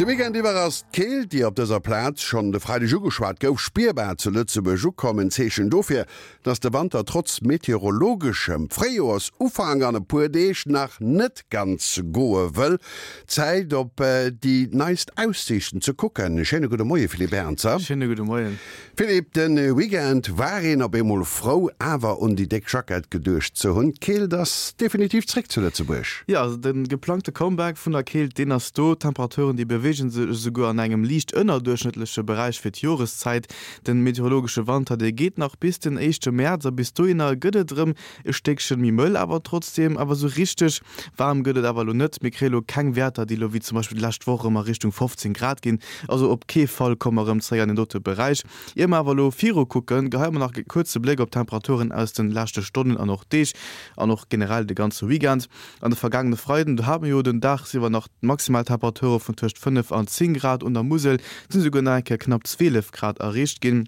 De Weekend iwwer ass d'Keelt, déi op dëser Plaz schonn de Freideg ugeschwat gouf, spierbar zu Lëtzebuerg ukomm. En Zeechen dofir, dass de Wanter trotz meteorologeschem Fréijoersufank an e puer Deeg nach net ganz goe wëll. Zäit op déi neist Aussiichten ze kucken. Schéine gudde Moie Philippe Ernzer. Schéine gudde Moien. Philippe, de Weekend war een op eemol frou awer un déi déck Jackett geduecht ze hunn. D'Keelt ass definitiv zréck zu Lëtzebuerg. Jo, also de geplangte Comeback vun der Keelt, deen ass do. D'Temperaturen, déi beweege sech esouguer an engem liicht ënnerduerchschnëttleche Beräich fir d'Joreszäit. Den meteorologesche Wanter, dee geet nach bis den éischte Mäerz a bis dohinner gëtt et erëm e Stéckchen méi mëll, awer trotzdeem awer esou richteg waarm gëtt et awer elo net. Mir kréie lo keng Wäerter, déi elo wéi zum Beispill d'lescht Woch erëm a Richtung 15 Grad ginn. Also op kee Fall komme mer erëm zeréck an deen dote Beräich. Ier mer awer elo viru kucken, geheie mer nach e kuerze Bléck op d'Temperaturen aus de leschte Stonnen an och Deeg an och generell de ganze Weekend. An de vergaangene Freiden, do hate mer jo den dagsiwwer nach maximal Temperature vun tëscht 5 an 10 Grad, un der Musel sinn esouguer nach eng Kéier knapp 12 Grad erreecht ginn.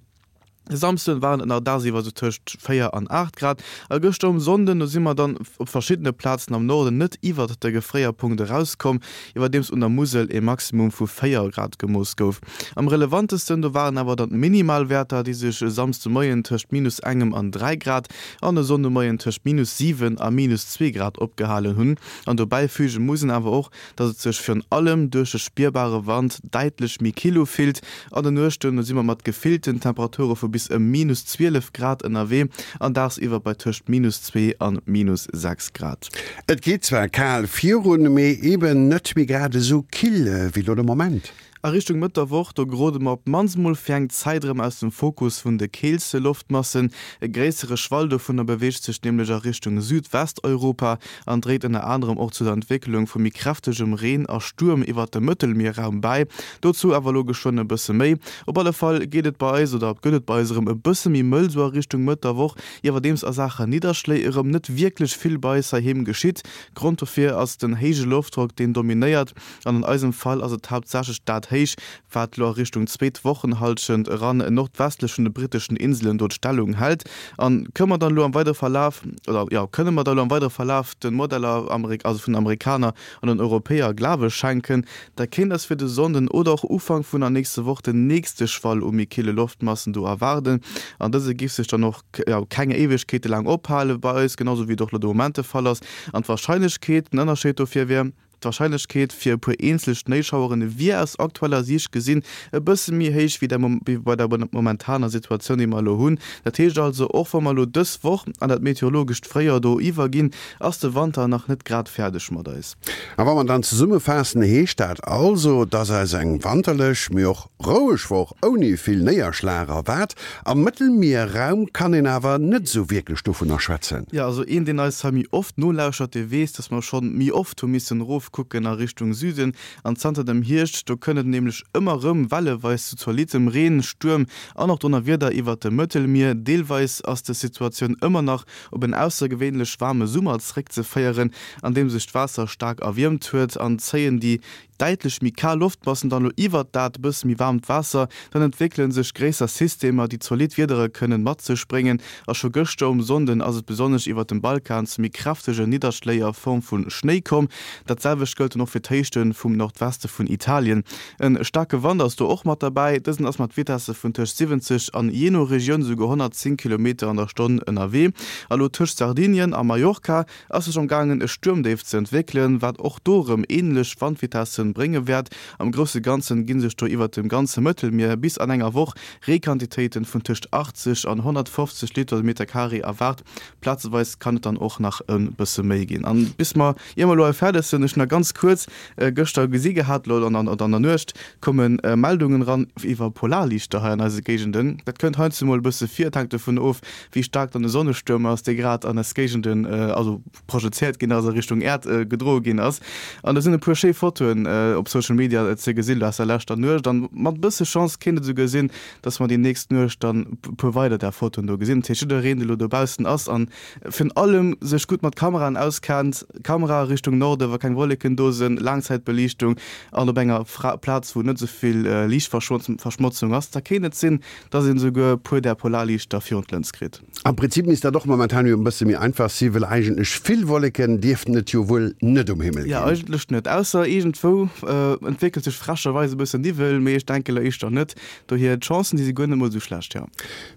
De Samsden waren et nach dagsiwwer esou tëscht 4 an 8 Grad a gëschter um Sonnden, do si mer dann op verschiddene Plazen am Norden net iwwert de Gefréierpunkt erauskomm, iwwerdeems un der Musel e Maximum vu 4 Grad gemooss gouf. Am relevantesten do waren awer dann d'Minimalwäerter, déi sech e Samsdemoien tëscht minus engem an 3 Grad an e Sonndemoien tëscht minus 7 a minus 2 Grad opgehalen hunn. An dobäi füge muss een awer och, dass et sech virun allem duerch de spierbare Wand däitlech méi kill ufillt. An de Nuechten si mer mat gefillten Temperature vu bis ëm minus 12 Grad ënnerwee an dagsiwwer bei tëscht minus 2 an minus 6 Grad. Et geet zwar kal virun, mee eben net méi grad esou kill wéi lo de Moment. A Richtung Mëtt der Woch, do gerode mer op d'mannst mol fir eng Zäit erëm aus dem Fokus vun de keelste Loftmassen. E gréissere Schwall dovunner beweegt sech nämlech a Richtung Südwesteuropa an dréit ënner anerem och zu der Entwécklung vu méi kräftegem Reen a Stuerm iwwert dem Mëttelmierraum bäi. Dozou awer elo geschwënn e bësse méi. Op alle Fall geet et bei eis oder gëtt et bei eis erëm e bësse méi mëll sou a Richtung Mëtt der Woch, iwwerdeems a Saache Nidderschléi erëm net wierklech vill bei eis heiheem geschitt. Grond dofir ass den héije Loftdrock, deen dominéiert. An an eisem Fall ass et haaptsächlech dat Héich, wat lo a Richtung zweet Wochenhallschent eran nordwestlech vun de britteschen Inselen do d'Stellung hält. An kënne mer dann elo am weidere Verlaf, oder jo, kënne mer da elo am weidere Verlaf de Modeller, also vun den Amerikaner an den Europäer Glawe schenken, da kéint eis fir de Sonnden oder och Ufank vun der nächste Woch den nächste Schwall u méi kille Loftmassen do erwaarden. An dëse giff sech dann och, jo, keng Éiwegkeete laang ophale bei eis, genau sou wéi et och elo de Moment de Fall ass. An d'Warscheinlechkeet, den Ënnerscheed dofir wier, D'Warscheinlechkeet fir e puer eenzel Schnéischaueren wier aus aktueller Siicht gesinn e bësse méi héich wéi bei der momentaner Situatioun, déi mer elo hunn. Dat heescht also, och wa mer elo dës Woch an dat meteorologescht Fréijoer do iwwerginn, ass de Wanter nach net grad fäerdeg mat eis. A wa mer dann zesummefaassen, heescht dat also, dass eis eng wanterlech, mee och Roueg Woch ouni vill Néierschlag erwaart. Am Mëttelmierraum kann een awer net esou wierklech dovunner schwätzen. Jo, also een deen eis hei méi oft nolauschert, dee weess, dass mer schonn méi oft hu missen erofkucken a Richtung Süden. An zanter dem Hierscht, do kënnt et nämlech ëmmer rëm welleweis zu zolittem Reen, Stuerm an och Donnerwieder iwwert dem Mëttelmier. Deelweis ass des Situatioun ëmmer nach op en aussergewéinlech waarme Summer zréckzeféieren, an deem sech d'Waasser staark erwiermt huet an zéien déi däitlech méi kal Loftmassen dann elo iwwert dat e bësse méi waarmt Waasser, dann entwéckele sech gréisser Systemer, déi zolidd Wiedere kënnen mat sech bréngen. A scho gëschter um Sonnden ass et besonnesch iwwert dem Balkan zu méi kräftege Nidderschléi a Form vu Schnéi komm. Dat selwecht gëllt dann och fir d'Héichte vum Nordweste vun Italien. E staarke Wand ass do och mat derbäi, dësen ass mat Vitesse vun tëscht 70 an jee no Regioun esouguer 110 Kilometer an der Stonn ënnerwee. A lo tëscht Sardinien a Mallorca ass sech am gaangen e Stuermdéif ze entwéckelen, wat och do erëm änlech Wandvitessen brénge wäert. Am grousse Ganzen gi sech do iwwert dem ganze Mëttelmier bis an enger Woch Reequantitéiten vun tëscht 80 an 150 Liter de Meter Carré erwaart. Plazeweis kann et dann och nach e bësse méi ginn. An bis mer, ier mer elo hei fäerdeg sinn, ech nach ganz kuerz gëschter gesi gehat, elo an der Nuecht komme Meldungen eran iwwer Polarliichter hei an eise Géigenden. Dat kënnt heiansdo mol e bësse vir, et hänkt dovun of, wéi staark dann de Sonnestuerm ass, dee grad an eis Géigenden, also projezéiert ginn ass, a Richtung Äerd gedroe ginn ass. An do sinn e puer schéi Fotoen op Social Media ze gesinn aus der leschter Nuecht. An mat e bësse Chance kéint et esouguer sinn, dass mer déi nächst Nuecht dann e puer weider där Fotoen do gesinn. Dat heescht, jiddereen, dee lo dobaussen ass an virun allem sech gutt mat Kameraen auskennt, Kamera Richtung Norde wa keng Wolleken do sinn, Laangzäitbeliichtung an op enger Plaz, wou net esou vill Liichtverschmotzung ass, da kéint et sinn, Dass een esouguer e puer där Polarliichter virun d'Lëns kritt. Am Prinzip misst dat och momentan jo e bësse méi einfach si, well eigentlech vill Wolleken dierften et jo wuel net um Himmel ginn. Jo, eigentlech net, ausser iergendwou. elo entwéckelt sech frecherweis e bëssen Niwwel, mee ech denke lo éischter net. Dohier, d'Chancen, déi si guer net mol esou schlecht, jo.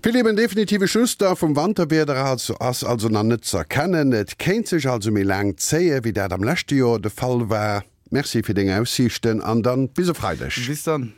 Philippe, en definitive Schluss da vum Wanterwieder ass also nach net z'erkennen. Et kéint sech also méi laang zéie wéi dat am leschte Joer de Fall war. Merci fir deng Aussiichten an dann bis e Freideg. Bis dann.